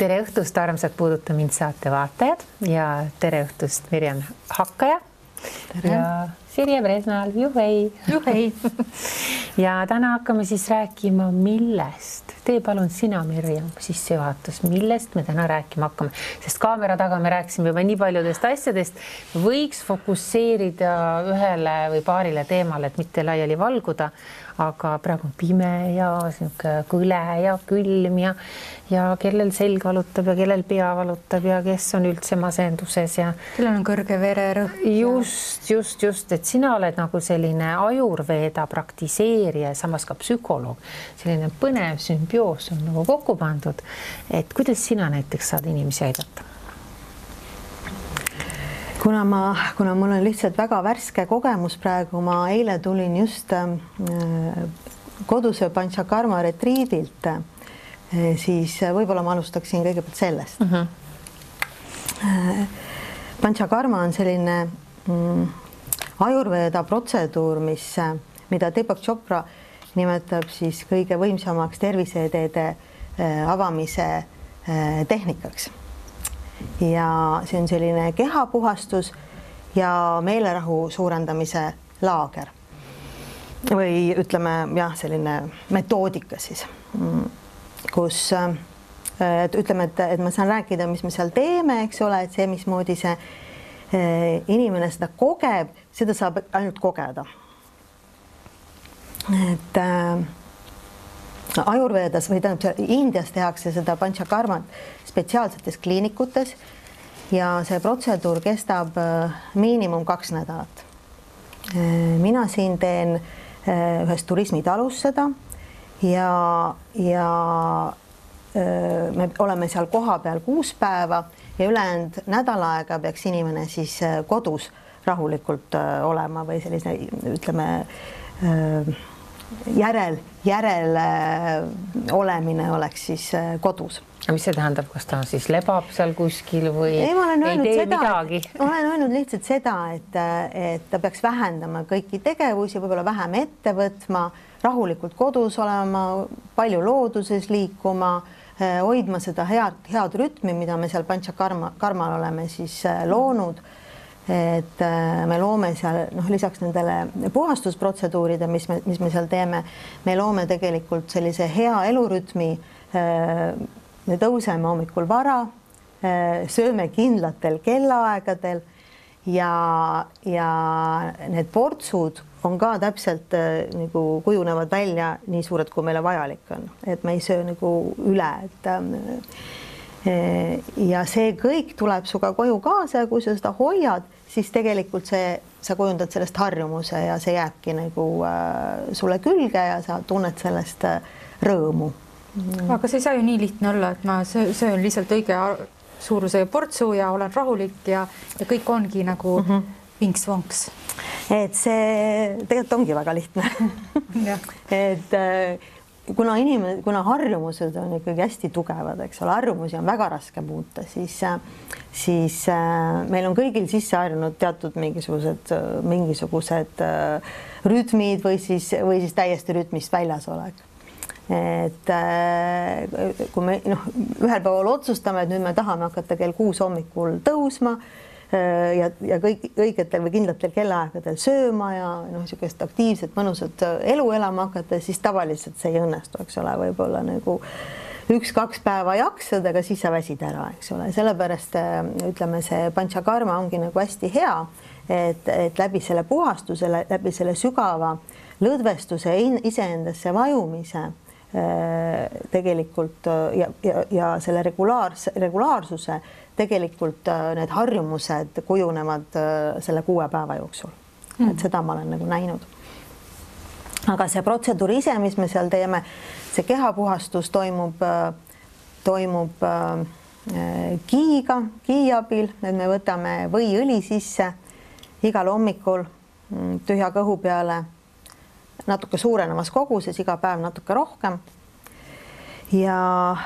Tere õhtust, armsad Puuduta mind saate vaatajad ja tere õhtust Mirjam Hakkaja ja Sirje Presnal. Juhei! Juhei! Ja täna hakkame siis rääkima millest. Tee palun sina, Mirjam, sissejuhatus, millest me täna rääkima hakkame, sest kaamera taga me rääkisime juba nii paljudest asjadest. Võiks fokusseerida ühele või paarile teemale, et mitte laiali valguda, aga praegu on pime ja kõle ja külm ja kellel selg valutab ja kellel pea valutab ja kes on üldse masenduses ja kellel on kõrge vererõhk. Just, et sina oled nagu selline ajurveeda praktiseerija ja samas ka psühholoog. Selline põnev sümbioos on nagu kokku pandud. Et kuidas sina näiteks saad inimesi aidata? Kuna mul on lihtsalt väga värske kogemus praegu, ma eile tulin just koduse Panchakarma retriidilt, siis võib-olla ma alustaksin kõigepealt sellest. Panchakarma on selline ajurveeda protseduur, mida Deepak Chopra nimetab siis kõige võimsamaks terviseedeede avamise tehnikaks. Ja see on selline kehapuhastus ja meelerahu suurendamise laager. Või ütleme, selline metoodika siis, kus ütleme, et ma saan rääkida, mis me seal teeme, eks ole, et see, mismoodi see inimene seda kogeb, seda saab ainult kogeda. Et ajurveedas või Indias tehakse seda Panchakarmat spetsiaalsetes kliinikutes ja see protseduur kestab miinimum 2 nädalat. Mina siin teen ühes turismitalus seda ja me oleme seal koha peal 6 päeva ja ülejäänud nädal aega peaks inimene siis kodus rahulikult olema või sellise, ütleme, järel olemine oleks siis kodus. Aga mis see tähendab, kas ta siis lebab seal kuskil või ei tee midagi? Olen öelnud lihtsalt seda, et ta peaks vähendama kõiki tegevusi, võib-olla vähem ette võtma, rahulikult kodus olema, palju looduses liikuma, hoidma seda head rütmi, mida me seal Panchakarmal oleme siis loonud. Et me loome seal, lisaks nendele puhastusprotseduuride, mis me seal teeme, me loome tegelikult sellise hea elurütmi. Me tõuseme hommikul vara, sööme kindlatel kellaaegadel ja need portsud on ka täpselt nagu kujunevad välja nii suured, kui meile vajalik on. Et me ei söö nagu üle. Ja see kõik tuleb suga koju kaasa ja kui sa seda hoiad, siis tegelikult sa kujundad sellest harjumuse ja see jääbki nagu sulle külge ja sa tunned sellest rõõmu. Aga see ei saa ju nii lihtne olla, et ma söön lihtsalt õige suuruse portsu ja olen rahulik ja kõik ongi nagu vinks-vonks. Et see tegelikult ongi väga lihtne. Et kuna harjumused on ikkagi hästi tugevad, eks ole, harjumusi on väga raske muuta, siis meil on kõigil sisse harjunud teatud mingisugused rütmid või siis täiesti rütmist väljas olek. Et kui me ühel päeval otsustame, et nüüd me tahame hakata kell 6 hommikul tõusma ja õigetel või kindlatel kellaaegadel sööma ja niisugust aktiivset, mõnusat elu elama hakata, siis tavaliselt see ei õnnestu, eks ole, võib-olla nagu 1-2 päeva jaksad, aga siis sa väsid ära, eks ole. Sellepärast ütleme, see Panchakarma ongi nagu hästi hea, et läbi selle puhastuse, läbi selle sügava lõdvestuse iseendasse vajumise tegelikult ja selle regulaarsuse tegelikult need harjumused kujunevad selle 6 päeva jooksul. Et seda ma olen nagu näinud. Aga see protseduur ise, mis me seal teeme, see kehapuhastus toimub kii abil, et me võtame võiõli sisse igal hommikul tühja kõhu peale natuke suurenemas koguses, iga päev natuke rohkem. Ja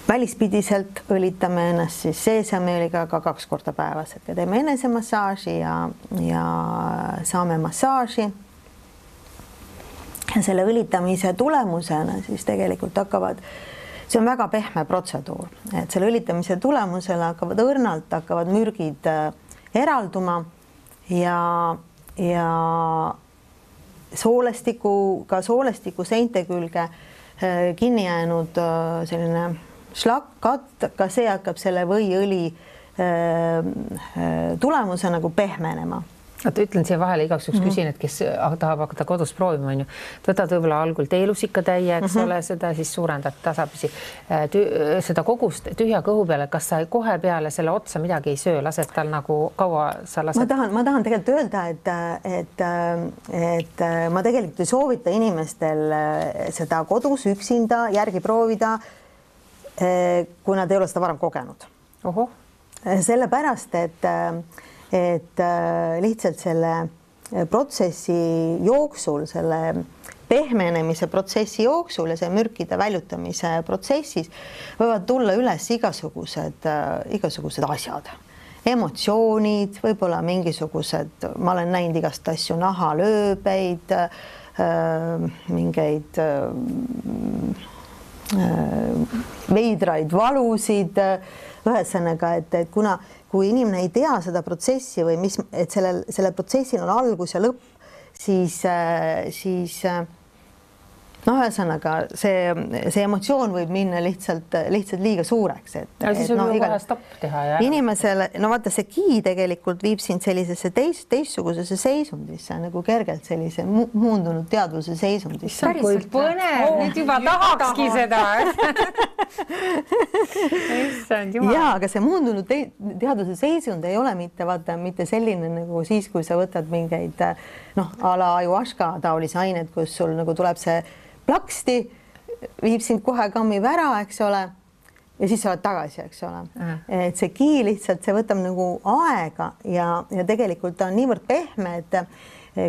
välispidiselt õlitame ennast siis seesamiõliga ka 2 korda päevas, et teeme enesemassaaži ja saame massaaži. Ja selle õlitamise tulemusena siis tegelikult hakkavad see on väga pehme protseduur, et selle õlitamise tulemusel hakkavad mürgid eralduma ja soolestiku seinte külge kinni jäänud selline šlakk, ka see hakkab selle võiõli tulemuse nagu pehmenema. Ütlen siia vahele igaks juhuks küsin, et kes tahab hakata kodus proovima, on ju. Võtad võib-olla algul teelusikatäie, eks ole, seda siis suurendad tasapisi seda kogust tühja kõhu peale. Kas sa kohe peale selle otsa midagi ei söö, lased tal nagu kaua sa lased? Ma tahan tegelikult öelda, et ma tegelikult ei soovita inimestel seda kodus üksinda järgi proovida, kui nad ei ole seda varem kogenud. Oho. Sellepärast, et lihtsalt selle protsessi jooksul, selle pehmenemise protsessi jooksul ja see mürkide väljutamise protsessis võivad tulla üles igasugused asjad, emotsioonid, võib-olla mingisugused, ma olen näinud igast asju, nahalööbeid, mingeid veidraid valusid, ühesõnaga, et kui inimene ei tea seda protsessi või et sellel protsessil on algus ja lõpp, siis ühesõnaga see emotsioon võib minna lihtsalt liiga suureks. Siis võib kohe stopp teha. Inimesele, vaata see ki tegelikult viib sind sellisesse teistsugusesse seisundisse, nagu kergelt sellise muundunud teadvuse seisundisse. Kui põnev, nüüd juba tahakski seda. Jaa, aga see muundunud teadvuse seisund ei ole mitte selline nagu siis, kui sa võtad mingeid a la ayahuasca taolisi ained, kus sul nagu tuleb see plaksti, viib sind kohe kammib ära, eks ole, ja siis sa oled tagasi, eks ole. Et see ki lihtsalt, see võtab nagu aega ja tegelikult ta on niivõrd pehme, et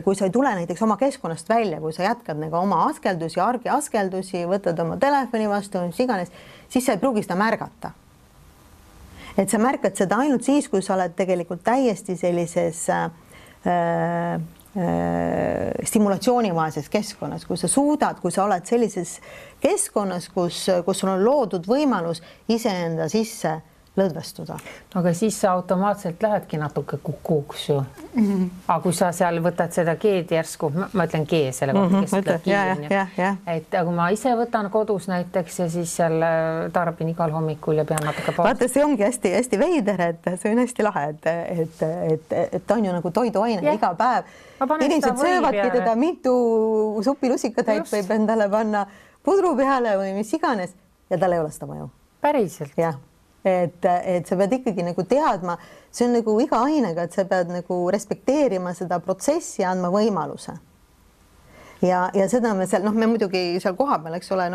kui sa ei tule näiteks oma keskkonnast välja, kui sa jätkad nagu oma askeldusi, argiaskeldusi, võtad oma telefoni vastu, mis iganes, siis sa ei pruugi seda märgata. Et sa märkad seda ainult siis, kui sa oled tegelikult täiesti sellises stimulatsioonivaeses keskkonnas, kui sa oled sellises keskkonnas, kus sul on loodud võimalus iseenda sisse lõdvestuda. Aga siis sa automaatselt lähedki natuke kukuuks ju. Aga kui sa seal võtad seda geed järsku, ma ütlen gee selle kohta, kes ütleb giid. Et kui ma ise võtan kodus näiteks ja siis seal tarbin igal hommikul ja pean natuke pausi. Vaata, see ongi hästi veider, et see on hästi lahe, et ta on ju nagu toiduaine iga päev. Inimesed söövadki teda mitu supilusikatäit võib endale panna pudru peale või mis iganes ja tal ei ole seda mõju. Päriselt? Jah. Et sa pead ikkagi nagu teadma, see on nagu iga ainega, et sa pead nagu respekteerima seda protsessi ja andma võimaluse. Ja seda me seal, me muidugi seal koha peal, eks ole,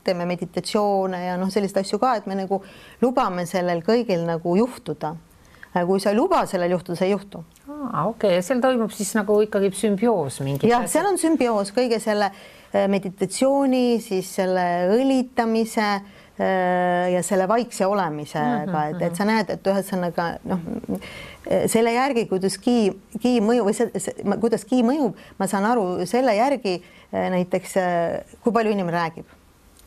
teeme meditatsioone ja sellist asju ka, et me nagu lubame sellel kõigil nagu juhtuda. Kui sa ei luba sellel juhtuda, see ei juhtu. Okei, ja seal toimub siis nagu ikkagi sümbioos mingi. Jah, seal on sümbioos kõige selle meditatsiooni, siis selle õlitamise ja selle vaikse olemisega, et sa näed, et ühesõnaga selle järgi, kuidas ki mõjub või kuidas ki mõjub, ma saan aru selle järgi näiteks, kui palju inimene räägib.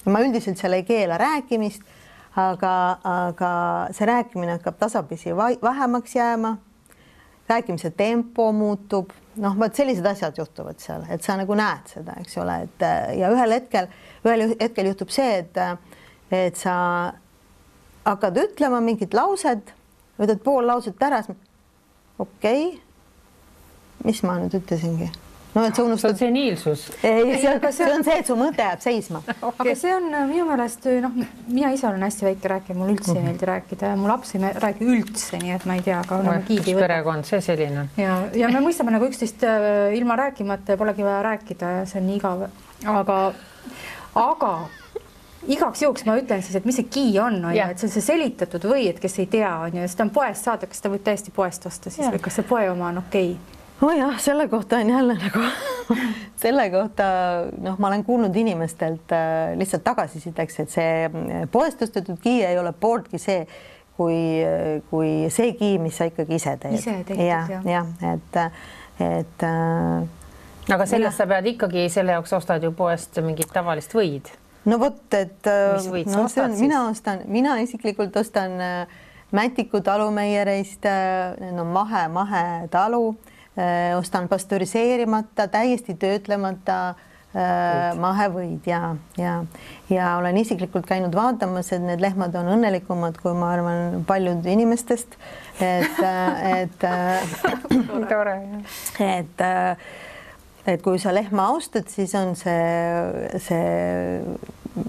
Ma üldiselt seal ei keela rääkimist, aga see rääkimine hakkab tasapisi vähemaks jääma, rääkimise tempo muutub, sellised asjad juhtuvad seal, et sa nagu näed seda, eks ole, ja ühel hetkel juhtub see, et sa hakkad ütlema mingit lauset, võtad pool lauset ära, okei, mis ma nüüd ütlesingi? Et sa unustad... See on seniilsus. See on see, et su mõte jääb seisma. Aga see on minu meelest, mina ise olen hästi väike rääkija, mul üldse ei meeldi rääkida ja mu laps ei räägi üldse, nii et ma ei tea, aga kiidi võtta. Perekond, see selline. Ja me mõistame nagu üksteist ilma rääkimata ja polegi vaja rääkida ja see on nii igav. Aga igaks juhuks ma ütlen siis, et mis see ki on, et see on see selitatud või, et kes ei tea, seda on poest saada, kas ta võib täiesti poest osta siis või kas see poe oma on okei? Jah, selle kohta on jälle nagu, selle kohta, ma olen kuulnud inimestelt lihtsalt tagasisideks, et see poest ostetud ki ei ole pooltki see, kui see ki, mis sa ikkagi ise teed. Ise teed, Aga sellest sa pead ikkagi, selle jaoks ostad ju poest mingit tavalist võid. no vot, et mina isiklikult ostan Mätiku talumeiereist, no mahe talu, ostan pastöriseerimata, täiesti töötlemata mahevõid ja olen isiklikult käinud vaatamas, et need lehmad on õnnelikumad, kui ma arvan paljud inimestest, et kui sa lehma austad, siis on see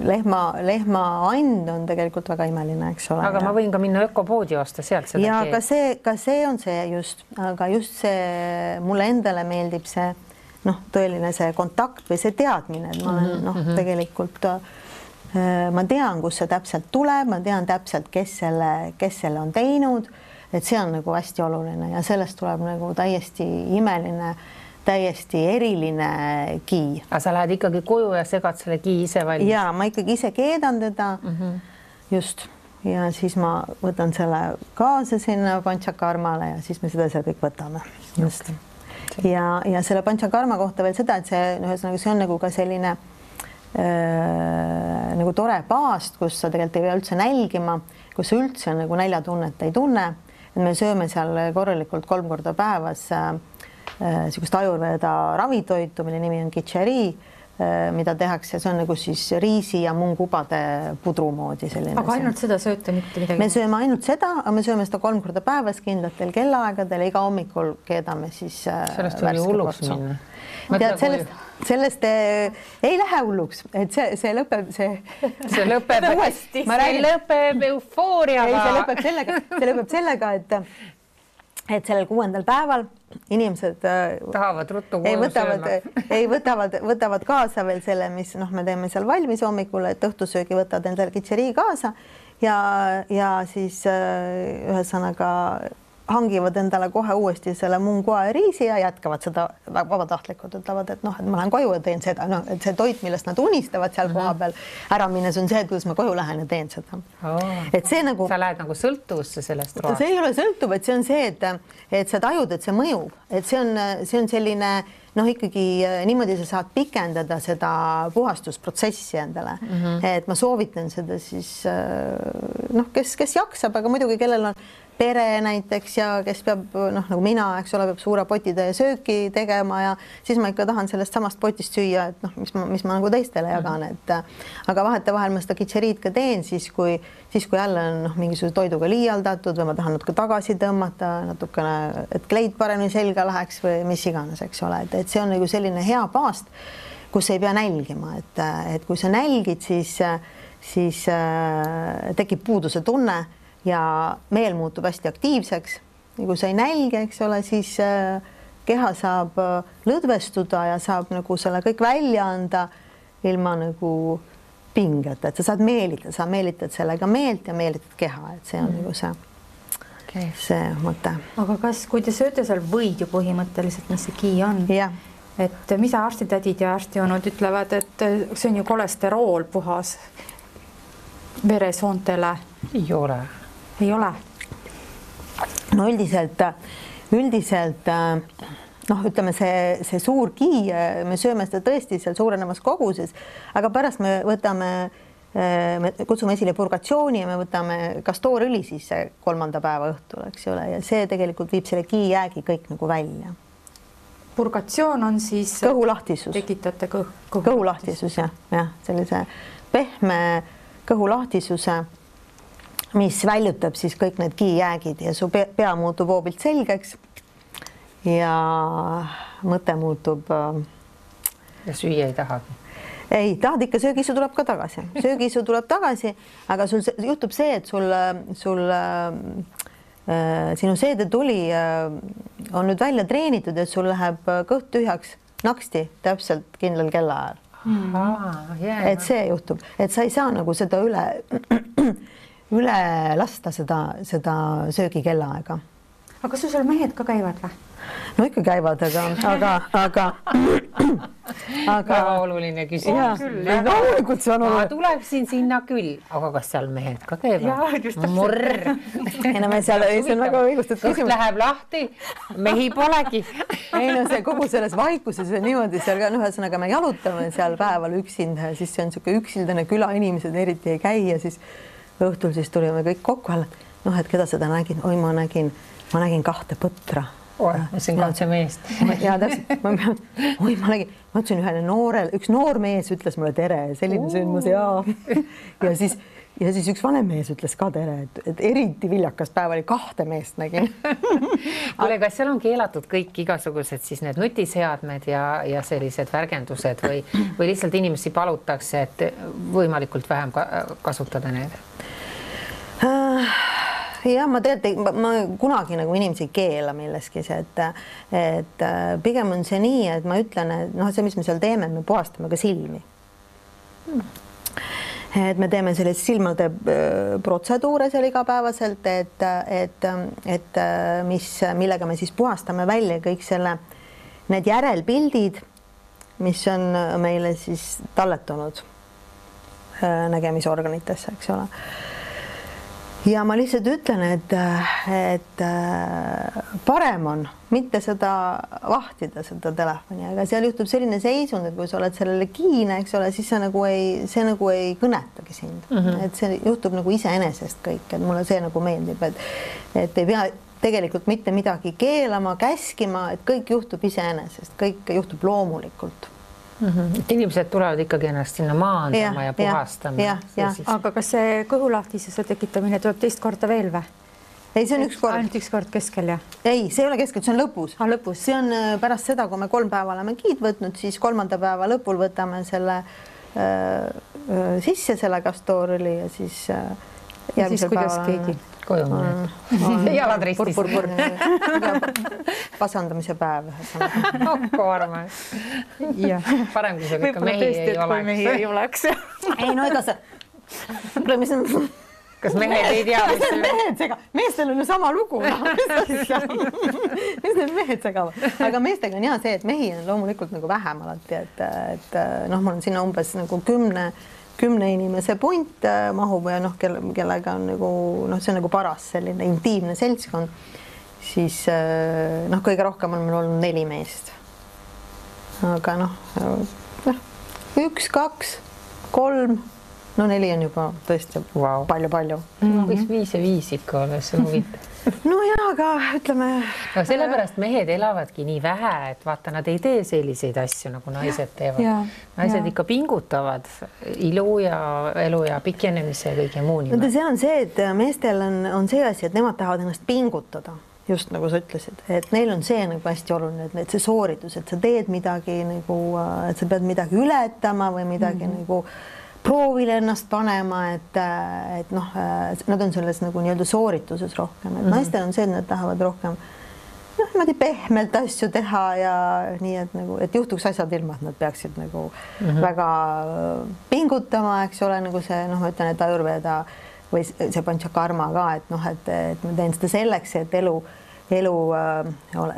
lehma and on tegelikult väga imeline, eks ole. Aga ma võin ka minna ökopoodi osta sealt seda. Ja ka see on see just, aga just see mulle endale meeldib see tõeline see kontakt või see teadmine, et ma olen tegelikult ma tean, kus see täpselt tuleb, ma tean täpselt, kes selle on teinud, et see on nagu hästi oluline ja sellest tuleb nagu täiesti imeline, täiesti eriline kii. Aga sa lähed ikkagi koju ja segad selle kii ise valmis? Ja ma ikkagi ise keedan teda just ja siis ma võtan selle kaasa sinna panchakarmale ja siis me seda seal kõik võtame. Just. Ja selle panchakarma kohta veel seda, et see on nagu ka selline nagu tore paast, kus sa tegelikult ei pea üldse nälgima, kus sa üldse nagu näljatunnet ei tunne. Et me sööme seal korralikult 3 korda päevas niisugust ajurveda ravitoitu, mille nimi on kichari, mida tehakse, see on nagu siis riisi ja mungubade pudru moodi selline. Aga ainult seda sööte mitte midagi? Me sööme ainult seda, aga me sööme seda 3 korda päevas kindlatel kellaaegadel ja iga hommikul keedame siis sellest oli hulluks minna. Sellest ei lähe hulluks, et see lõpeb uuesti. Ma räägin, lõpeb eufooriaga. See lõpeb sellega, et sellel 6. päeval inimesed tahavad ruttu koju sööma. Võtavad kaasa veel selle, mis me teeme seal valmis hommikul, et õhtusöögi võtavad endale kitšeri kaasa ja siis ühesõnaga hangivad endale kohe uuesti selle mungua ja riisi ja jätkavad seda vabatahtlikult, ütlevad, et et ma lähen koju ja teen seda, et see toit, millest nad unistavad seal koha peal ära minnes on see, kuidas ma koju lähen ja teen seda. Et see nagu... Sa lähed nagu sõltuvusse sellest roast. See ei ole sõltuv, et see on see, et sa tajud, et see mõjub, et see on selline ikkagi niimoodi sa saad pikendada seda puhastusprotsessi endale. Et ma soovitan seda siis kes jaksab, aga muidugi kellel on pere näiteks ja kes peab, nagu mina, eks ole, peab suure potitäie sööki tegema ja siis ma ikka tahan sellest samast potist süüa, et mis ma nagu teistele jagan, aga vahetevahel ma seda kitšeriid ka teen siis, kui jälle on mingisuguse toiduga liialdatud või ma tahan natuke tagasi tõmmata, natukene, et kleid paremini selga läheks või mis iganes, eks ole, et see on nagu selline hea paast, kus ei pea nälgima, et kui sa nälgid, siis tekib puuduse tunne ja meel muutub hästi aktiivseks ja kui sa ei nälge, eks ole, siis keha saab lõdvestuda ja saab nagu selle kõik välja anda ilma nagu pingeta, et sa saad meelitada, sa meelitad sellega meelt ja meelitad keha, et see on nagu see mõte. Aga kui te sööte seal võid ju põhimõtteliselt, mis see kii on, et mida arstitädid ja arstijoonud ütlevad, et see on ju kolesterool puhas veresoontele? Ei ole. Ei ole? No üldiselt ütleme see suur kii, me sööme seda tõesti seal suurenemas koguses, aga pärast me kutsume esile purgatsiooni ja me võtame kastoorõli siis 3. päeva õhtul, eks ole, ja see tegelikult viib selle kii jäägi kõik nagu välja. Purgatsioon on siis kõhulahtisus. Tekitate kõhulahtisus, jah, sellise pehme kõhulahtisuse, mis väljutab siis kõik need kiijäägid ja su pea muutub hoobilt selgeks ja mõte muutub. Ja süüa ei tahagi? Ei, tahad ikka, söögisu tuleb ka tagasi. Söögisu tuleb tagasi, aga sul juhtub see, et sinu seedetuli on nüüd välja treenitud, et sul läheb kõht tühjaks naksti täpselt kindlal kellaajal. Et see juhtub, et sa ei saa nagu seda üle lasta seda söögi kellaaega. aga kas sul seal mehed ka käivad või? No ikka käivad, aga väga oluline küsimus. Ma tuleksin sinna küll, aga kas seal mehed ka käivad? Murr. Ei no me seal, see on väga õigustatud küsimus. Kõht läheb lahti, mehi polegi. Ei no see kogu selles vaikuses on niimoodi seal ka, ühesõnaga me jalutame seal päeval üksinda ja siis see on niisugune üksildane küla, inimesed eriti ei käi ja siis õhtul siis tulime kõik kokku, et keda seda nägin? Oi, ma nägin 2 põtra. See on kaudse meest. Ja täpselt, ma ütlesin üks noor mees ütles mulle tere, selline sündmus ja siis üks vanem mees ütles ka tere, et eriti viljakas päev oli 2 meest nägin. Kuule, kas seal on keelatud kõik igasugused siis need nutiseadmed ja sellised värgendused või lihtsalt inimesi palutakse, et võimalikult vähem kasutada need? Ja ma kunagi nagu inimesi ei keela milleski, et pigem on see nii, et ma ütlen, et see, mis me seal teeme, me puhastame ka silmi. Et me teeme sellised silmade protseduure seal igapäevaselt, millega me siis puhastame välja kõik need järelpildid, mis on meile siis talletunud nägemisorganitesse, eks ole. Ja ma lihtsalt ütlen, et parem on mitte seda vahtida, seda telefoni, aga seal juhtub selline seisund, et kui sa oled sellele kiine, eks ole, siis see nagu ei kõnetagi sind. Et see juhtub nagu iseenesest kõik, et mulle see nagu meeldib, et ei pea tegelikult mitte midagi keelama, käskima, et kõik juhtub iseenesest, kõik juhtub loomulikult. Inimesed tulevad ikkagi ennast sinna maandama ja puhastama. Aga kas see kõhulahtisuse tekitamine tuleb teist korda veel või? Ei, see on üks kord. Ainult üks kord keskel, jah? Ei, see ei ole keskel, see on lõpus. Lõpus. See on pärast seda, kui me 3 päeva oleme giid võtnud, siis 3. päeva lõpul võtame selle sisse, selle kastoorili ja siis järgmisel päeval keegi koju jalad ristis. Pasandamise päev. Hakku armas. Parem, kui see ikka mehi ei oleks. Ei, no ega see... Kas mehed ei tea? Meestel on ju sama lugu. Mis need mehed segavad? Aga meestega on see, et mehi on loomulikult nagu vähem alati, et mul on sinna umbes nagu 10 inimese punt mahub ja kellega on nagu, see on nagu paras selline intiimne seltskond, siis kõige rohkem on meil olnud 4 meest. Aga 1, 2, 3, 4 on juba tõesti palju. Võiks 5 ja 5 ikka olla, see huvitav. No jaa, aga ütleme... No sellepärast mehed elavadki nii vähe, et vaata, nad ei tee selliseid asju, nagu naised teevad. Naised ikka pingutavad ilu ja elu ja pikenemise ja kõige muu nimel. See on see, et meestel on see asi, et nemad tahavad ennast pingutada, just nagu sa ütlesid, et neil on see nagu hästi oluline, et see sooritus, et sa teed midagi nagu, et sa pead midagi ületama või midagi nagu proovile ennast panema, et nad on selles nagu nii-öelda soorituses rohkem, et naistel on see, et nad tahavad rohkem niimoodi pehmelt asju teha ja nii, et nagu, et juhtuks asjad ilma, et nad peaksid nagu väga pingutama, eks ole, nagu see, ma ütlen, et Ayurveda või see Panchakarma ka, et ma teen seda selleks, et elu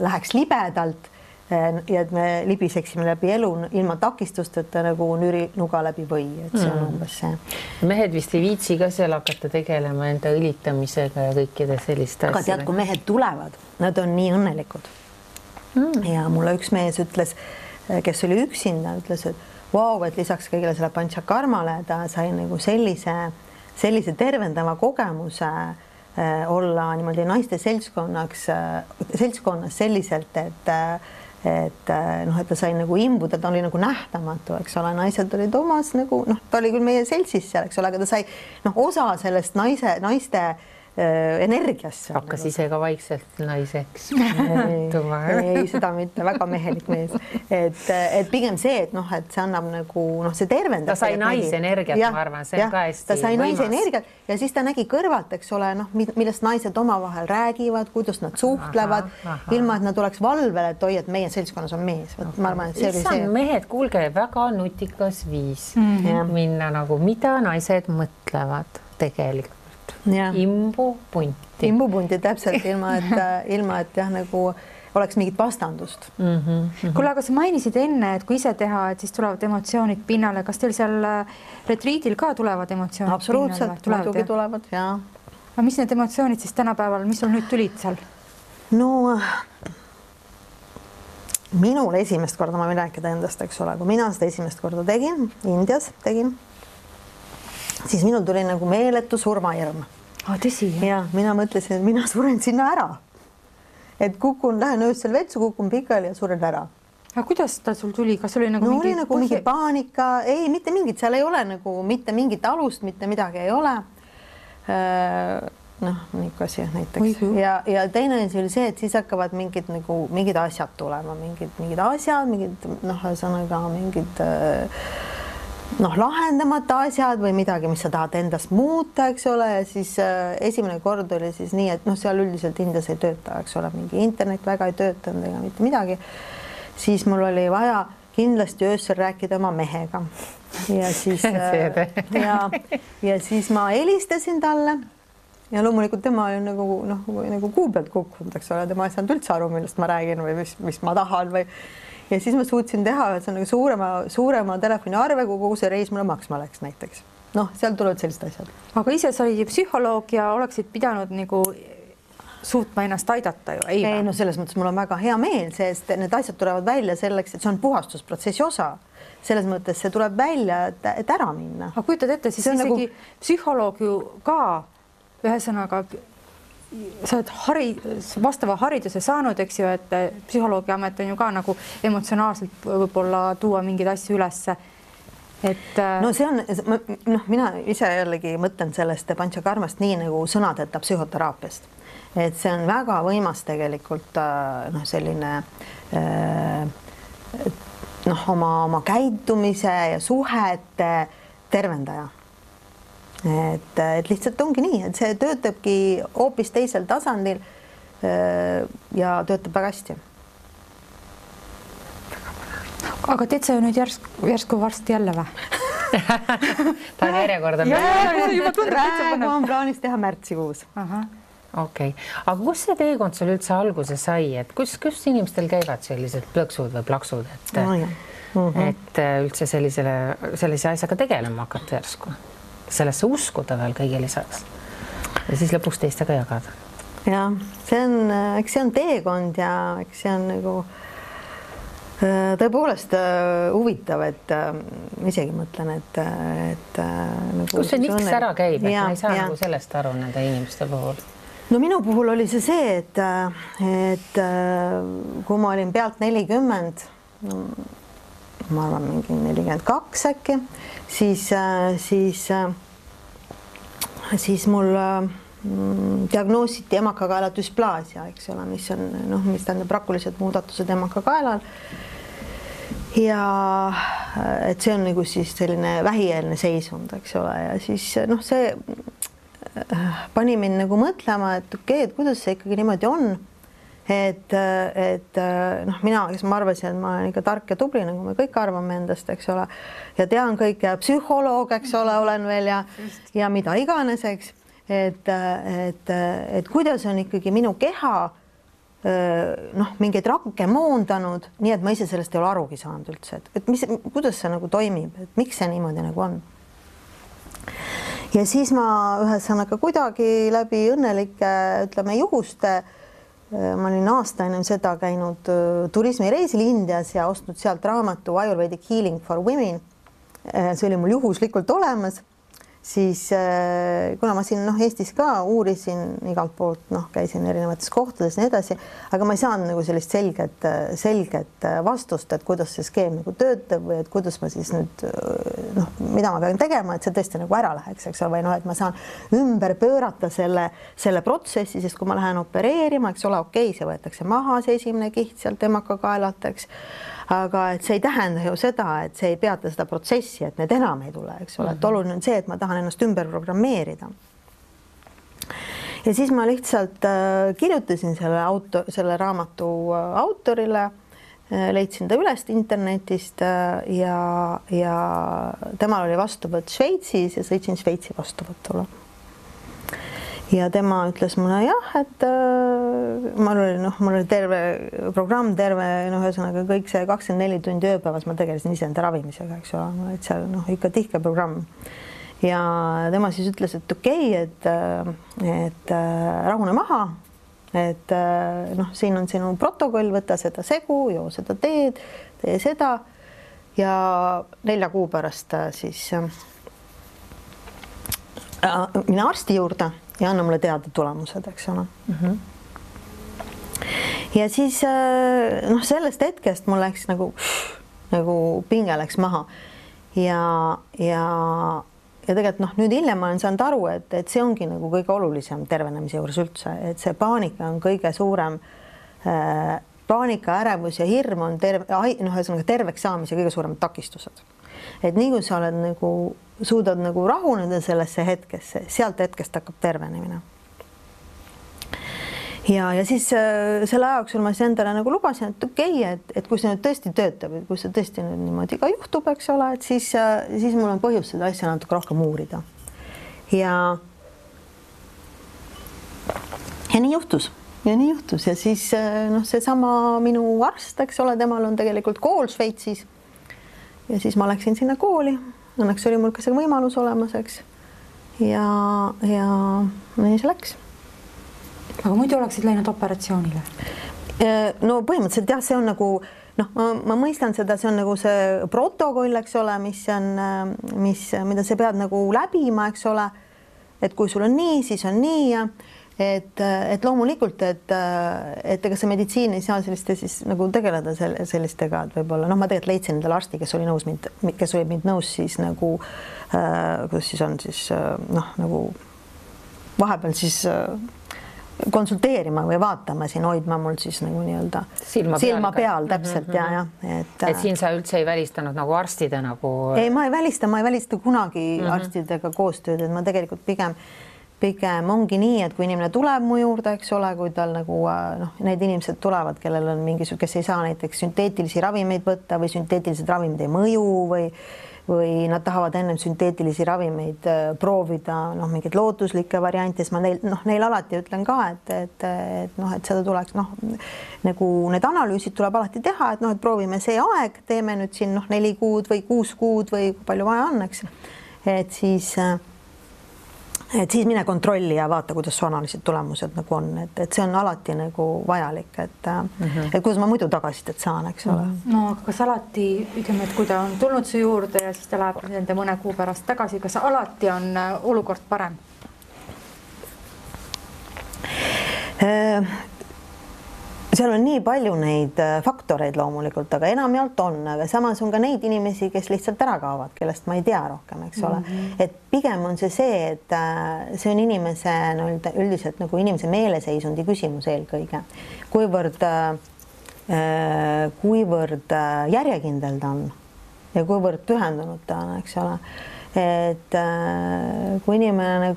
läheks libedalt ja et me libiseksime läbi elu ilma takistusteta nagu nürinuga läbi või, et see on umbes see. Mehed vist ei viitsi ka seal hakata tegelema enda õlitamisega ja kõikide selliste asjadega. Aga tead, kui mehed tulevad, nad on nii õnnelikud. Ja mulle üks mees ütles, kes oli üksinda, ütles, et et lisaks kõigile selle Panchakarmale ta sai nagu sellise tervendava kogemuse olla niimoodi naiste seltskonnas selliselt, et ta sai nagu imbuda, ta oli nagu nähtamatu, eks ole, naised olid omas nagu, ta oli küll meie seltsis seal, eks ole, aga ta sai osa sellest naiste energiasse. Hakkas ise ka vaikselt naiseks. Ei, seda mitte, väga mehelik mees. Et pigem see, et see annab nagu, see tervendab. Ta sai naisenergiat, ma arvan, see on ka hästi ta sai naisenergiat ja siis ta nägi kõrvalt, eks ole, millest naised omavahel räägivad, kuidas nad suhtlevad, ilma, et nad oleks valvel, et oi, et meie seltskonnas on mees. Ma arvan, et see oli see. Mehed, kuulge, väga nutikas viis minna nagu, mida naised mõtlevad tegelikult. imbupunti. Imbupunti täpselt ilma, et jah, nagu oleks mingit vastandust. Kuule, aga sa mainisid enne, et kui ise teha, et siis tulevad emotsioonid pinnale. Kas teil seal retriidil ka tulevad emotsioonid absoluutselt, pinnale? muidugi tulevad, jaa. Aga mis need emotsioonid siis tänapäeval, mis sul nüüd tulid seal? No minul esimest korda, ma võin rääkida endast, eks ole, kui mina seda esimest korda tegin, Indias tegin, siis minul tuli nagu meeletu surmahirm. Tõsi? Ja mina mõtlesin, et mina suren sinna ära. Et lähen öösel vetsu, kukun pikali ja suren ära. Aga kuidas ta sul tuli? Kas oli nagu mingi paanika? Ei, mitte mingit, seal ei ole nagu mitte mingit alust, mitte midagi ei ole. Niisugune asi näiteks. Ja teine asi oli see, et siis hakkavad mingid asjad tulema, mingid asjad, mingid lahendamata asjad või midagi, mis sa tahad endast muuta, eks ole, ja siis esimene kord oli siis nii, et seal üldiselt Indias ei tööta, eks ole, mingi internet väga ei töötanud ega mitte midagi. Siis mul oli vaja kindlasti öösel rääkida oma mehega. Ja siis, ja siis ma helistasin talle ja loomulikult tema oli nagu kuu pealt kukkunud, eks ole, tema ei saanud üldse aru, millest ma räägin või mis ma tahan või. Ja siis ma suutsin teha suurema telefoniarve, kui kogu see reis mulle maksma läks näiteks. Seal tulevad sellised asjad. Aga ise sa olid psühholoog ja oleksid pidanud nagu suutma ennast aidata ju, ei? Ei, selles mõttes mul on väga hea meel, sest need asjad tulevad välja selleks, et see on puhastusprotsessi osa. Selles mõttes see tuleb välja, et ära minna. Aga kujutad ette, siis isegi psühholoog ju ka ühesõnaga sa oled vastava hariduse saanud, eks ju, et psühholoogi amet on ju ka nagu emotsionaalselt võib-olla tuua mingeid asju ülesse. See on, mina ise jällegi mõtlen sellest Panchakarmast nii nagu sõnadeta psühhoteraapiast. Et see on väga võimas tegelikult selline oma käitumise ja suhete tervendaja. Et lihtsalt ongi nii, et see töötabki hoopis teisel tasandil ja töötab väga hästi. Aga teed sa ju nüüd järsku varsti jälle või? Ta on järjekorda. Praegu on plaanis teha märtsikuus. Okei. Aga kus see teekond sul üldse alguse sai, et kus inimestel käivad sellised plõksud või plaksud, et üldse sellise asjaga tegelema hakata järsku? Sellesse uskuda veel kõige lisaks ja siis lõpuks teistega jagada. Ja, eks see on teekond ja eks see on nagu tõepoolest huvitav, et isegi mõtlen, et nagu kus see niks ära käib, et ma ei saa nagu sellest aru nende inimeste puhul? No minu puhul oli see see, et kui ma olin pealt 40, ma arvan mingi 42 äkki, siis mul diagnoositi emakakaela dysplaasia, eks ole, mis tähendab rakulised muudatused emakakaelal. Ja et see on nagu siis selline vähieelne seisund, eks ole, ja siis see pani mind nagu mõtlema, et okei, et kuidas see ikkagi niimoodi on. Et mina, kes ma arvasin, et ma olen ikka tark ja tubli, nagu me kõik arvame endast, eks ole, ja tean kõik ja psühholoog, eks ole, olen veel ja mida iganes, eks, et kuidas on ikkagi minu keha mingeid rakke moondanud, nii et ma ise sellest ei ole arugi saanud üldse, et kuidas see nagu toimib, et miks see niimoodi nagu on. Ja siis ma ühesõnaga kuidagi läbi õnnelike, ütleme, juhuste ma olin aasta ennem seda käinud turismireisil Indias ja ostnud sealt raamatu Ayurvedic Healing for Women. See oli mul juhuslikult olemas. Siis kuna ma siin Eestis ka uurisin igalt poolt, käisin erinevates kohtades ja nii edasi, aga ma ei saanud nagu sellist selget vastust, et kuidas see skeem nagu töötab või et kuidas ma siis nüüd, mida ma pean tegema, et see tõesti nagu ära läheks, eks ole, või et ma saan ümber pöörata selle protsessi, sest kui ma lähen opereerima, eks ole, okei, see võetakse maha, see esimene kiht sealt emakakaelalt, eks. Aga et see ei tähenda ju seda, et see ei peata seda protsessi, et need enam ei tule, eks ole, et oluline on see, et ma tahan ennast ümber programmeerida. Ja siis ma lihtsalt kirjutasin selle raamatu autorile, leidsin ta üles internetist ja temal oli vastuvõtt Šveitsis ja sõitsin Šveitsi vastuvõtule. ja tema ütles mulle jah, et mul oli terve programm, ühesõnaga kõik see 24 tundi ööpäevas ma tegelesin iseenda ravimisega, eks ole, et seal ikka tihke programm. Ja tema siis ütles, et okei, et rahune maha, et siin on sinu protokoll, võta seda segu, joo seda teed, tee seda ja 4 kuu pärast siis mine arsti juurde ja anna mulle teada tulemused, eks ole. Ja siis sellest hetkest mul läks nagu pinge läks maha ja tegelikult nüüd hiljem ma olen saanud aru, et see ongi nagu kõige olulisem tervenemise juures üldse, et see paanika on kõige suurem, paanika, ärevus ja hirm on terveks saamise kõige suuremad takistused. Et nii kui sa oled suudad rahuneda sellesse hetkesse, sealt hetkest hakkab tervenemine. Ja siis selle ajauksul ma siis endale lubasin, et okei, et kui see nüüd tõesti töötab, et kui see tõesti nüüd niimoodi ka juhtub, eks ole, et siis mul on põhjus seda asja natuke rohkem uurida. Ja nii juhtus. Ja siis seesama minu arst, eks ole, temal on tegelikult kool Šveitsis. Ja siis ma läksin sinna kooli. Õnneks oli mul ka see võimalus olemas, eks. Ja nii see läks. Aga muidu oleksid läinud operatsioonile? No põhimõtteliselt jah, see on ma mõistan seda, see on see protokoll, eks ole, mida sa pead läbima, eks ole, et kui sul on nii, siis on nii ja et loomulikult, et ega see meditsiin ei saa selliste siis tegeleda sellistega, et võib-olla, ma tegelikult leidsin endale arsti, kes oli mind nõus siis kuidas siis on siis vahepeal siis konsulteerima või vaatama siin, hoidma mul siis nii-öelda silma peal täpselt ja. Et siin sa üldse ei välistanud arstide Ei, ma ei välista kunagi arstidega koostööd, et ma tegelikult pigem ongi nii, et kui inimene tuleb mu juurde, eks ole, kui tal need inimesed tulevad, kellel on kes ei saa näiteks sünteetilisi ravimeid võtta või sünteetilised ravimid ei mõju või nad tahavad ennem sünteetilisi ravimeid proovida, mingeid lootuslikke variante, siis ma neil alati ütlen ka, et seda tuleks, need analüüsid tuleb alati teha, et proovime see aeg, teeme nüüd siin 4 kuud või 6 kuud või palju vaja on, eks. Et siis mine kontrolli ja vaata, kuidas su analüüsid tulemused on, et see on alati vajalik, et kuidas ma muidu tagasisidet saan, eks ole. No, aga kas alati, ütleme, et kui ta on tulnud su juurde ja siis ta läheb nende mõne kuu pärast tagasi, kas alati on olukord parem? Seal on nii palju neid faktoreid loomulikult, aga enamjaolt on, aga samas on ka neid inimesi, kes lihtsalt ära kaovad, kellest ma ei tea rohkem, eks ole. Et pigem on see, et see on inimese üldiselt inimese meeleseisundi küsimus eelkõige. Kuivõrd järjekindel ta on ja kuivõrd pühendunud ta on, eks ole. Et kui inimene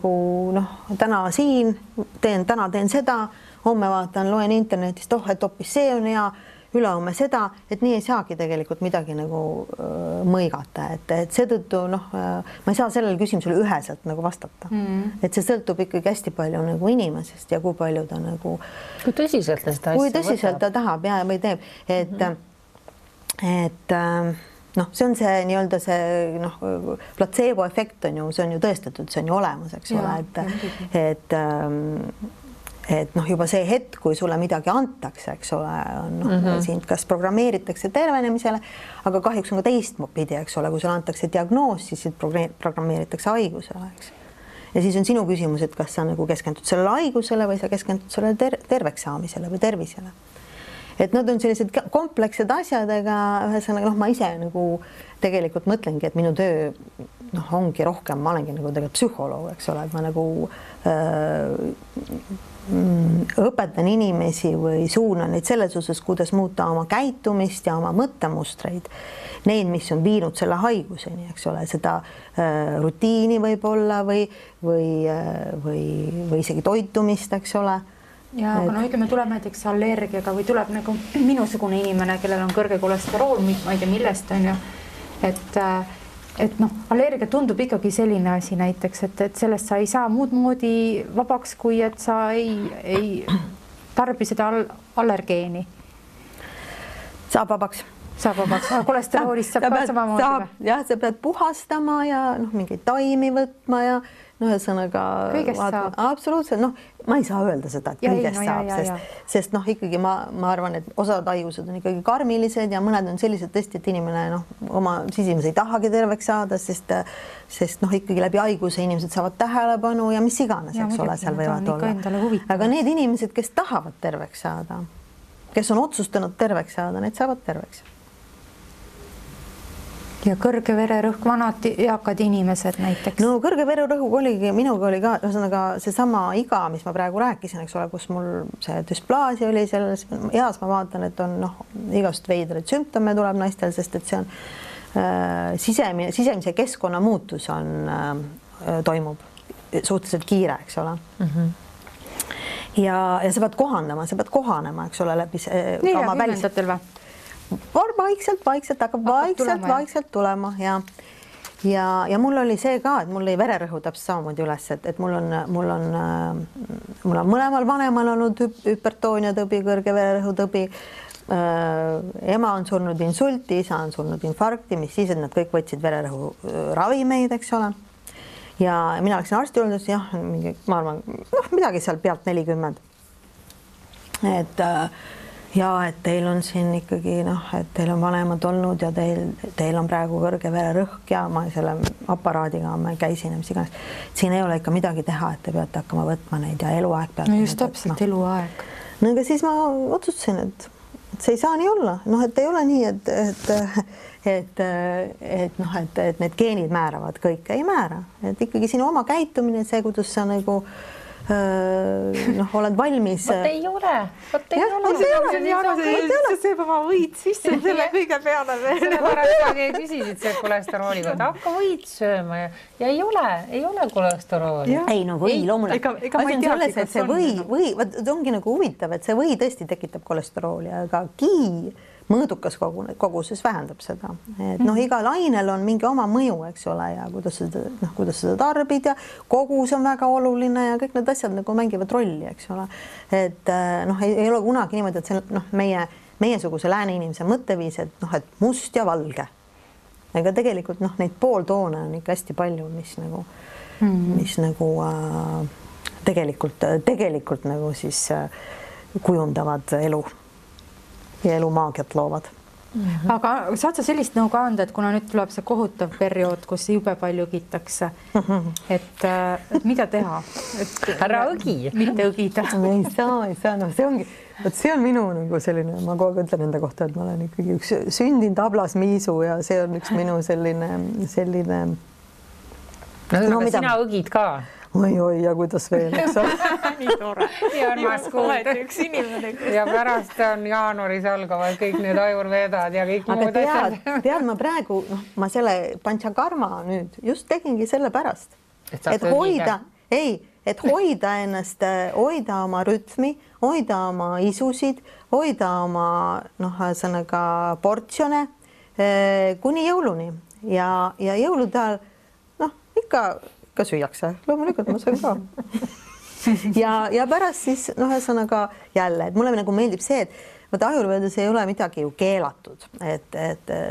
täna siin teen seda, homme vaatan, loen internetist, et hoopis see on hea, ülehomme seda, et nii ei saagi tegelikult midagi mõigata, et seetõttu ma ei saa sellele küsimusele üheselt vastata. Et see sõltub ikkagi hästi palju inimesest ja kui palju ta kui tõsiselt ta seda asja tõsiselt ta tahab ja või teeb, et see on see nii-öelda see platseebo efekt on ju, see on ju tõestatud, see on ju olemas, eks ole, et juba see hetk, kui sulle midagi antakse, eks ole, sind kas programmeeritakse tervenemisele, aga kahjuks on ka teistpidi, eks ole, kui sulle antakse diagnoos, siis programmeeritakse haigusele, eks. Ja siis on sinu küsimus, et kas sa keskendud sellele haigusele või sa keskendud sellele terveks saamisele või tervisele. Et nad on sellised komplekssed asjadega, ühesõnaga, ma ise tegelikult mõtlengi, et minu töö ongi rohkem, ma olengi tegelikult psühholoog, eks ole, et ma õpetan inimesi või suunan neid selles osas, kuidas muuta oma käitumist ja oma mõttemustreid, neid, mis on viinud selle haiguseni, eks ole, seda rutiini võib-olla või isegi toitumist, eks ole. Ja, aga ütleme, tuleb näiteks allergiaga või tuleb minusugune inimene, kellel on kõrge kolesterool, ma ei tea millest on ju, et et noh, allergia tundub ikkagi selline asi näiteks, et sellest sa ei saa muud moodi vabaks, kui et sa ei tarbi seda allergeeni. Saab vabaks. Saab vabaks, kolesteroolist saab ka samamoodi või? Jah, sa pead puhastama ja mingeid taimi võtma ja ühesõnaga absoluutselt, ma ei saa öelda seda, et kõigest saab, sest ikkagi ma arvan, et osad haigused on ikkagi karmilised ja mõned on sellised tõesti, et inimene oma sisimas ei tahagi terveks saada, sest ikkagi läbi haiguse inimesed saavad tähelepanu ja mis iganes, eks ole, seal võivad olla. Aga need inimesed, kes tahavad terveks saada, kes on otsustanud terveks saada, need saavad terveks. Ja kõrge vererõhk, vanad eakad inimesed näiteks? No kõrge vererõhk oligi, minuga oli ka ühesõnaga seesama iga, mis ma praegu rääkisin, eks ole, kus mul see dysplaasia oli selles eas, ma vaatan, et on igast veidraid sümptome tuleb naistel, sest et see on sisemise keskkonna muutus toimub suhteliselt kiire, eks ole. Ja sa pead kohanema, eks ole, läbi oma välistatel või? Vaikselt hakkab vaikselt tulema ja mul oli see ka, et mul ei vererõhu täpselt samamoodi üles, et mul on mõlemal vanemal olnud hüpertoonia tõbi, kõrge vererõhu tõbi. Ema on surnud insulti, isa on surnud infarkti, mis siis, et nad kõik võtsid vererõhu ravimeid, eks ole. Ja mina läksin arsti juurde, jah, ma arvan, midagi seal pealt 40. Ja et teil on siin ikkagi, et teil on vanemad olnud ja teil on praegu kõrge vererõhk ja ma selle aparaadiga ma käisin ja mis iganes. Siin ei ole ikka midagi teha, et te peate hakkama võtma neid ja eluaeg peate. No just täpselt eluaeg. No aga siis ma otsustasin, et see ei saa nii olla. Et ei ole nii, et need geenid määravad kõike. Ei määra. Et ikkagi sinu oma käitumine, see, kuidas sa nagu oled valmis. Vot ei ole. See sööb oma võid sisse selle kõige peale veel. Selle pärast sa küsisid see kolesterooli kohta. Hakka võid sööma ja ei ole kolesterooli. Ei, või loomulikult. Asi on selles, et see või, ongi nagu huvitav, et see või tõesti tekitab kolesterooli, aga mõõdukas koguses vähendab seda. Igal ainel on mingi oma mõju, eks ole, ja kuidas seda tarbid ja kogus on väga oluline ja kõik need asjad nagu mängivad rolli, eks ole. Et ei ole kunagi niimoodi, et see meiesuguse lääne inimese mõtteviis, et must ja valge. Ega tegelikult neid pooltoone on ikka hästi palju, mis tegelikult nagu siis kujundavad elu. Ja elumaagiat loovad. Aga saad sa sellist nõu ka anda, et kuna nüüd tuleb see kohutav periood, kus jube palju õgitakse, et mida teha? Ära õgi. Mitte õgida. Ei saa. See on minu nagu selline, ma kogu aeg ütlen enda kohta, et ma olen ikkagi üks sündinud tablas miisu ja see on üks minu selline. Sina õgid ka. Oi, ja kuidas veel, eks ole? Nii tore. Ja on maas kuulda. Üks inimene. Ja pärast on jaanuaris algavad kõik need ajurvedad ja kõik muud asjad. Tead, ma praegu, ma selle panchakarma nüüd just tegingi selle pärast, et hoida ennast, hoida oma rütmi, hoida oma isusid, hoida oma sõnaga portsjone kuni jõuluni ja jõulude ajal ikka süüakse, loomulikult ma söön ka. Ja pärast siis ühesõnaga jälle, et mulle nagu meeldib see, et ajurvedas ei ole midagi ju keelatud, et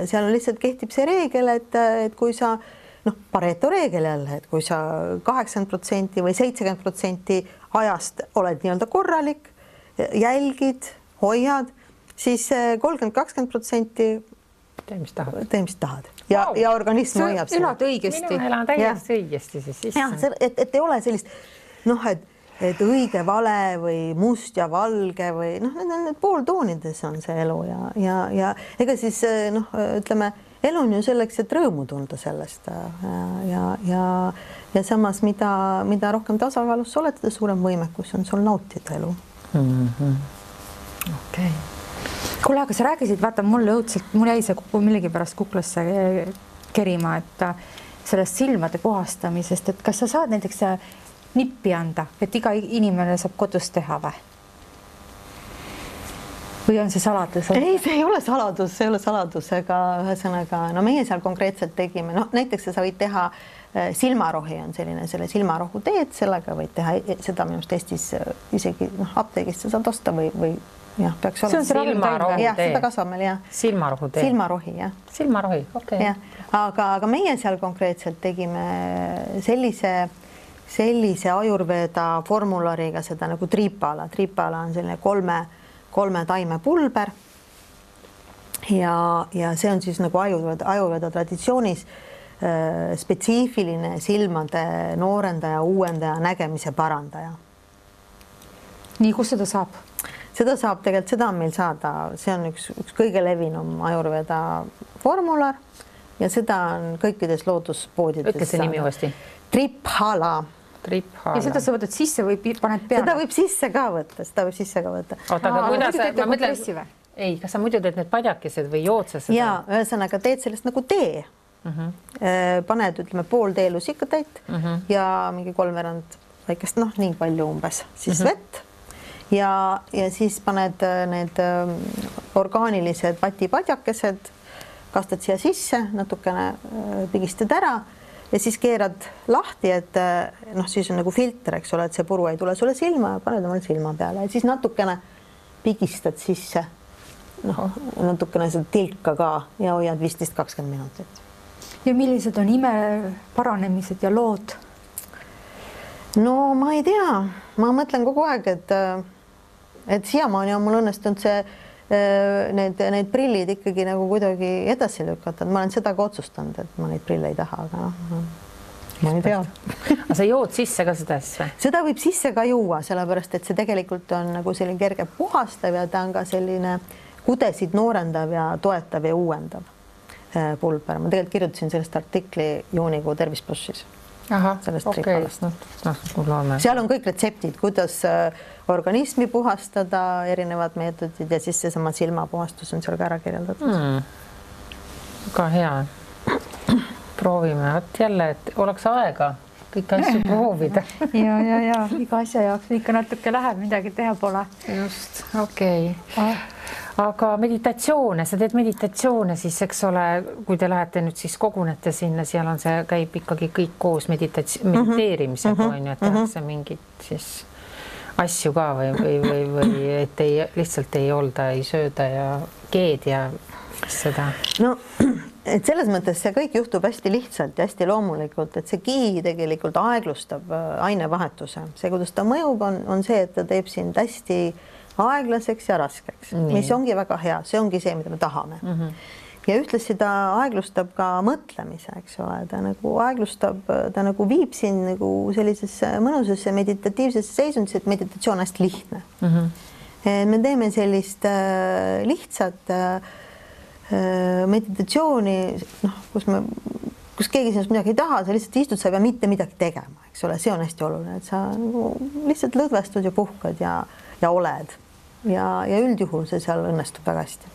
seal lihtsalt kehtib see reegel, et kui sa Pareto reegel jälle, et kui sa 80% või 70% ajast oled nii-öelda korralik, jälgid, hoiad, siis 30-20% tee, mis tahad. Tee, mis tahad. Ja organism hoiab seda. Elad õigesti. Mina elan täiesti õigesti siis. Ja, et ei ole sellist, et õige vale või must ja valge või need pooltoonides on see elu ja ega siis ütleme, elu on ju selleks, et rõõmu tunda sellest ja samas, mida rohkem tasakaalus sa oled, seda suurem võimekus on sul nautida elu. Okei. Kuule, aga sa rääkisid, vaata, mul jäi see millegi pärast kuklasse kerima, et sellest silmade puhastamisest, et kas sa saad näiteks nippi anda, et iga inimene saab kodus teha või? või on see saladus? Ei, see ei ole saladus, aga ühesõnaga, no meie seal konkreetselt tegime, no näiteks sa võid teha silmarohi on selline, selle silmarohu teed, sellega võid teha seda minu arust Eestis isegi apteegist sa saad osta või jah, peaks olema. Silmarohu tee. Seda kasvab meil, jah. Silmarohu tee. Silmarohi, jah. Silmarohi, okei. Aga meie seal konkreetselt tegime sellise ajurveda formulariga seda nagu triipala. Triipala on selline kolme taime pulber ja see on siis nagu ajurveda traditsioonis spetsiifiline silmade noorendaja, uuendaja, nägemise parandaja. Nii, kus seda saab? Seda saab tegelikult, seda on meil saada, see on üks kõige levinum ajurveda formular ja seda on kõikides looduspoodides. Ütle see nimi uuesti. Triphala. Ja seda sa võtad sisse või paned peale? Seda võib sisse ka võtta. Oota, aga kuidas ma mõtlen, ei, kas sa muidu teed need padjakesed või joodsed seda? Ja, ühesõnaga teed sellest nagu tee. Paned, ütleme, pool teelusikkatäit ja mingi 3/4 väikest, nii palju umbes, siis vett ja siis paned need orgaanilised vatipadjakesed, kastad siia sisse, natukene pigistad ära ja siis keerad lahti, et siis on nagu filter, eks ole, et see puru ei tule sulle silma ja paned omal silma peale ja siis natukene pigistad sisse, natukene seda tilka ka ja hoiad 15-20 minutit. Ja millised on ime paranemised ja lood? No ma ei tea, ma mõtlen kogu aeg, et siiamaani on mul õnnestunud need prillid ikkagi nagu kuidagi edasi lükata. Ma olen seda ka otsustanud, et ma neid prille ei taha, aga ma ei tea. Aga sa jood sisse ka seda asja? Seda võib sisse ka juua, sellepärast, et see tegelikult on nagu selline kerge puhastav ja ta on ka selline kudesid noorendav ja toetav ja uuendav pulber. Ma tegelikult kirjutasin sellest artikli juunikuu Tervis Plussis. Aha, okei. Seal on kõik retseptid, kuidas organismi puhastada, erinevad meetodid ja siis seesama silmapuhastus on seal ka ära kirjeldatud. Väga hea. Proovime, jälle, et oleks aega kõiki asju proovida. Ja, iga asja jaoks ikka natuke läheb, midagi teha pole. Just, okei. Aga meditatsioone, sa teed meditatsioone siis, eks ole, kui te lähete nüüd siis kogunete sinna, seal on see, käib ikkagi kõik koos mediteerimisega, on ju, et tehakse mingid siis asju ka või et lihtsalt ei olda, ei sööda ja keed ja seda. No, et selles mõttes see kõik juhtub hästi lihtsalt ja hästi loomulikult, et see ki tegelikult aeglustab ainevahetuse. See, kuidas ta mõjub, on see, et ta teeb sind hästi aeglaseks ja raskeks, mis ongi väga hea, see ongi see, mida me tahame. Ja ühtlasi ta aeglustab ka mõtlemise, eks ole, ta nagu aeglustab, ta nagu viib sind nagu sellisesse mõnusasse meditatiivsesse seisundisse, et meditatsioon on hästi lihtne. Me teeme sellist lihtsat meditatsiooni, kus keegi sinust midagi ei taha, sa lihtsalt istud, sa ei pea mitte midagi tegema, eks ole, see on hästi oluline, et sa nagu lihtsalt lõdvestud ja puhkad ja oled. Ja üldjuhul see seal õnnestub väga hästi.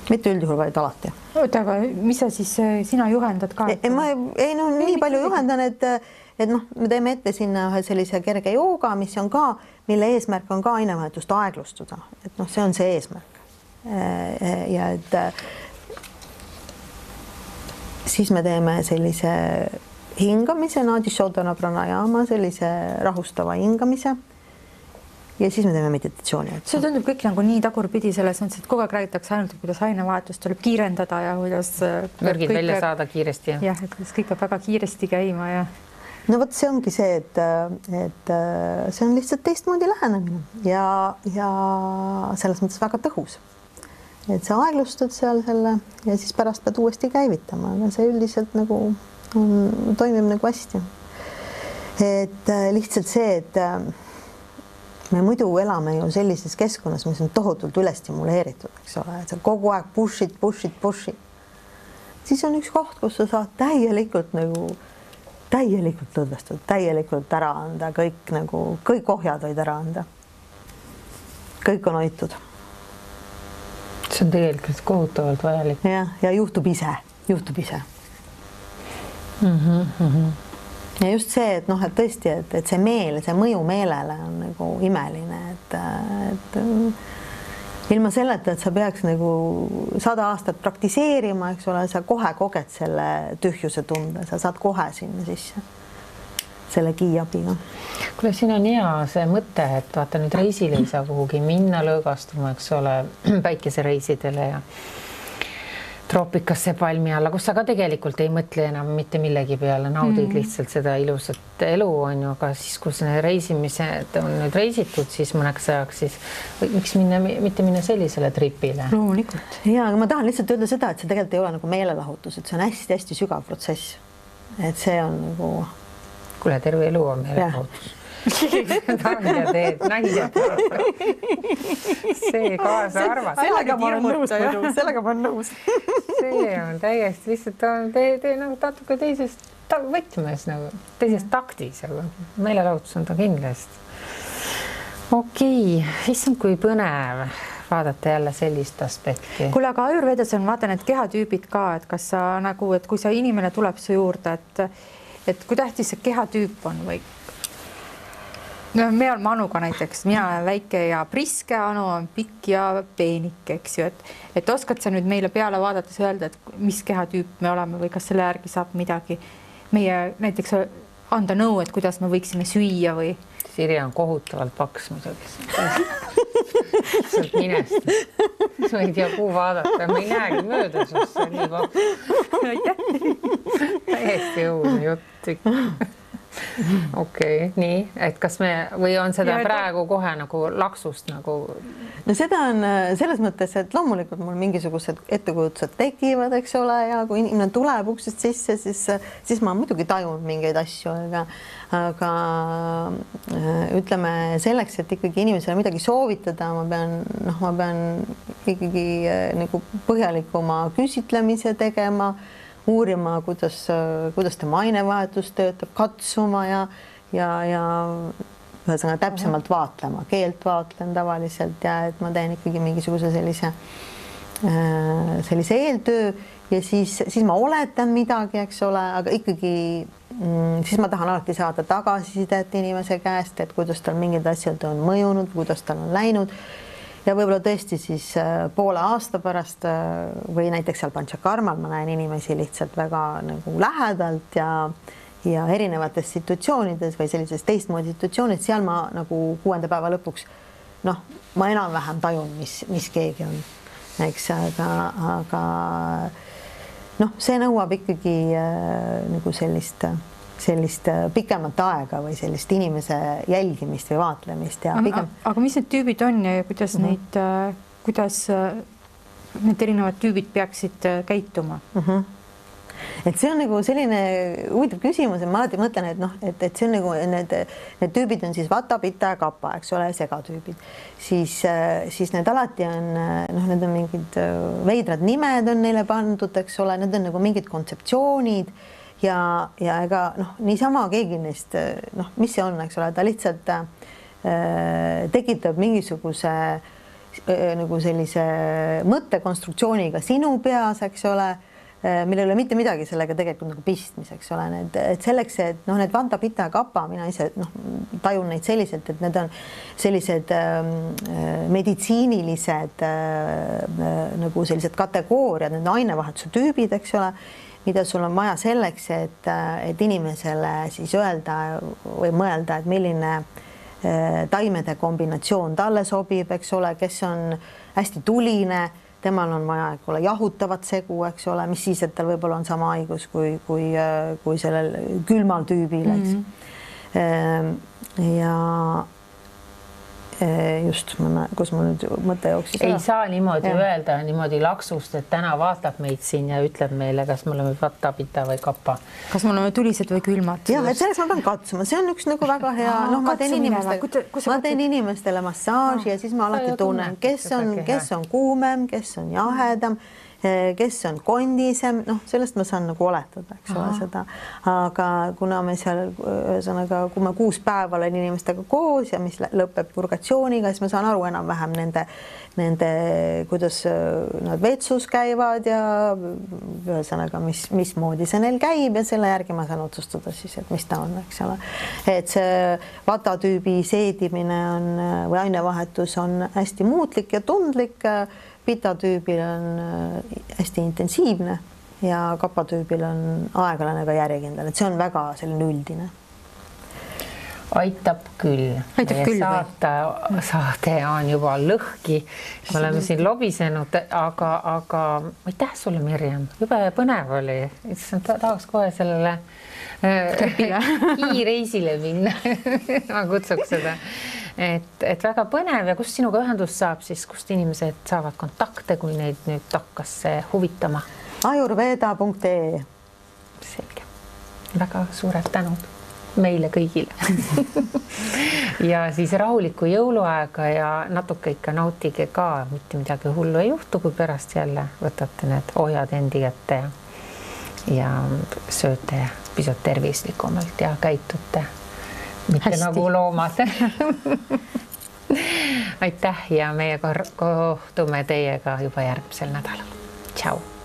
Mitte üldjuhul, vaid alati. Oota, aga mis sa siis, sina juhendad ka? Nii palju juhendan, et me teeme ette sinna ühe sellise kerge jooga, mis on ka, mille eesmärk on ka ainevahetust aeglustada. Et see on see eesmärk. Ja et siis me teeme sellise hingamise, Nadi Shodhana pranayama, sellise rahustava hingamise. Ja siis me teeme meditatsiooni. See tundub kõik nagu nii tagurpidi selles mõttes, et kogu aeg räägitakse ainult, kuidas ainevahetust tuleb kiirendada ja kuidas mürgid välja saada kiiresti. Jah, et kõik peab väga kiiresti käima ja no vot, see ongi see, et see on lihtsalt teistmoodi lähenemine ja selles mõttes väga tõhus. Et sa aeglustad seal selle ja siis pärast pead uuesti käivitama, aga see üldiselt nagu toimib nagu hästi. Et lihtsalt see, et me muidu elame ju sellises keskkonnas, mis on tohutult üle stimuleeritud, eks ole, et sa kogu aeg push'id. Siis on üks koht, kus sa saad täielikult lõdvestud, täielikult ära anda, kõik ohjad võid ära anda. Kõik on hoitud. See on tegelikult kohutavalt vajalik. Ja juhtub ise. Ja just see, et et tõesti, et see meel, see mõju meelele on nagu imeline, et ilma selleta, et sa peaks nagu 100 aastat praktiseerima, eks ole, sa kohe koged selle tühjuse tunde, sa saad kohe sinna sisse selle kiiabiga. Kuule, siin on hea see mõte, et vaata nüüd reisile ei saa kuhugi minna lõõgastuma, eks ole, päikesereisidele ja troopikasse palmi alla, kus sa ka tegelikult ei mõtle enam mitte millegi peale, naudid lihtsalt seda ilusat elu on ju, aga siis, kus need reisimised on nüüd reisitud, siis mõneks ajaks, siis miks mitte minna sellisele tripile? Loomulikult. Ja, aga ma tahan lihtsalt öelda seda, et see tegelikult ei ole nagu meelelahutus, et see on hästi-hästi sügav protsess. Et see on nagu... Kuule, terve elu on meelelahutus. Nahja teed. See kaasa arvad. Sellega ma olen nõus. See on täiesti lihtsalt tee nagu natuke teisest võtmes, nagu teisest taktis, aga meelelahutus on ta kindlasti. Okei, issand kui põnev vaadata jälle sellist aspekti. Kuule, aga Ayurvedas on vaata need kehatüübid ka, et kas sa nagu, et kui sa inimene tuleb su juurde, et kui tähtis see kehatüüp on või? No, me oleme Anuga näiteks, mina olen väike ja priske, Anu on pikk ja peenik, eks ju, et oskad sa nüüd meile peale vaadates öelda, et mis kehatüüp me oleme või kas selle järgi saab midagi meie näiteks anda nõu, et kuidas me võiksime süüa või? Sirje on kohutavalt paks muidugi. Sealt minest. Sa ei tea, kuhu vaadata. Ma ei näegi mööda susse nii paks. Täiesti õudne jutt. Okei, nii, et kas me või on seda praegu kohe nagu laksust nagu? No seda on selles mõttes, et loomulikult mul mingisugused ettekujutused tekivad, eks ole, ja kui inimene tuleb uksest sisse, siis ma muidugi tajun mingeid asju, aga ütleme selleks, et ikkagi inimesele midagi soovitada, ma pean ikkagi nagu põhjalikuma küsitlemise tegema, uurima, kuidas tema ainevahetus töötab, katsuma ja ühesõnaga täpsemalt vaatlema, keelt vaatlen tavaliselt ja et ma teen ikkagi mingisuguse sellise eeltöö ja siis ma oletan midagi, eks ole, aga ikkagi siis ma tahan alati saada tagasisidet inimese käest, et kuidas tal mingid asjad on mõjunud, kuidas tal on läinud. Ja võib-olla tõesti siis poole aasta pärast või näiteks seal Panchakarmal ma näen inimesi lihtsalt väga nagu lähedalt ja erinevates situatsioonides või sellises teistmoodi situatsioonid, seal ma nagu 6. päeva lõpuks ma enam-vähem tajun, mis keegi on, eks, aga see nõuab ikkagi nagu sellist pikemat aega või sellist inimese jälgimist või vaatlemist. Aga mis need tüübid on ja kuidas kuidas need erinevad tüübid peaksid käituma? Et see on nagu selline huvitav küsimus, et ma alati mõtlen, et see on nagu need tüübid on siis Vata, Pitta ja Kappa, eks ole, segatüübid. Siis need alati on, need on mingid veidrad nimed on neile pandud, eks ole, need on nagu mingid kontseptsioonid ja ega niisama keegi neist, mis see on, eks ole, ta lihtsalt tekitab mingisuguse nagu sellise mõttekonstruktsiooniga sinu peas, eks ole, millel ei ole mitte midagi sellega tegelikult nagu pistmis, eks ole, et selleks, et need Vata, Pitta ja Kappa, mina ise tajun neid selliselt, et need on sellised meditsiinilised nagu sellised kategooriad, need ainevahetuse tüübid, eks ole, mida sul on vaja selleks, et inimesele siis öelda või mõelda, et milline taimede kombinatsioon talle sobib, eks ole, kes on hästi tuline, temal on vaja jahutavat segu, eks ole, mis siis, et tal võib-olla on sama haigus kui sellel külmal tüübil, eks. Ja just, kus mul nüüd mõte jooksis. Ei saa niimoodi öelda niimoodi laksust, et täna vaatab meid siin ja ütleb meile, kas me oleme Vata, Pitta või Kappa. Kas me oleme tulised või külmad? Jah, et selleks ma pean katsuma. See on üks nagu väga hea. Ma teen inimestele massaaži ja siis ma alati tunnen, kes on kuumem, kes on jahedam kes on kondisem, noh, sellest ma saan nagu oletada, eks ole, seda. Aga kuna me seal, ühesõnaga, kui ma 6 päeva olen inimestega koos ja mis lõpeb purgatsiooniga, siis ma saan aru enam-vähem nende, kuidas nad vetsus käivad ja ühesõnaga, mismoodi see neil käib ja selle järgi ma saan otsustada siis, et mis ta on, eks ole. Et see vatatüübi seedimine on või ainevahetus on hästi muutlik ja tundlik. Pitatüübil on hästi intensiivne ja kapatüübil on aeglane ka järjekindel, et see on väga selline üldine. Aitab küll. Saade on juba lõhki. Me oleme siin lobisenud, aga aitäh sulle, Mirjam. Jube põnev oli. Tahaks kohe sellele kiireisile minna. Ma kutsuks seda. Et väga põnev ja kust sinuga ühendust saab siis, kust inimesed saavad kontakte, kui neid nüüd hakkas huvitama? Ayurveda.ee. Selge. Väga suured tänud meile kõigile. Ja siis rahulikku jõuluaega ja natuke ikka nautige ka, mitte midagi hullu ei juhtu, kui pärast jälle võtate need ohjad endi kätte ja sööte pisut tervislikumalt ja käitute mitte hästi. Nagu loomad. Aitäh ja meie kohtume teiega juba järgmisel nädalal. Tšau!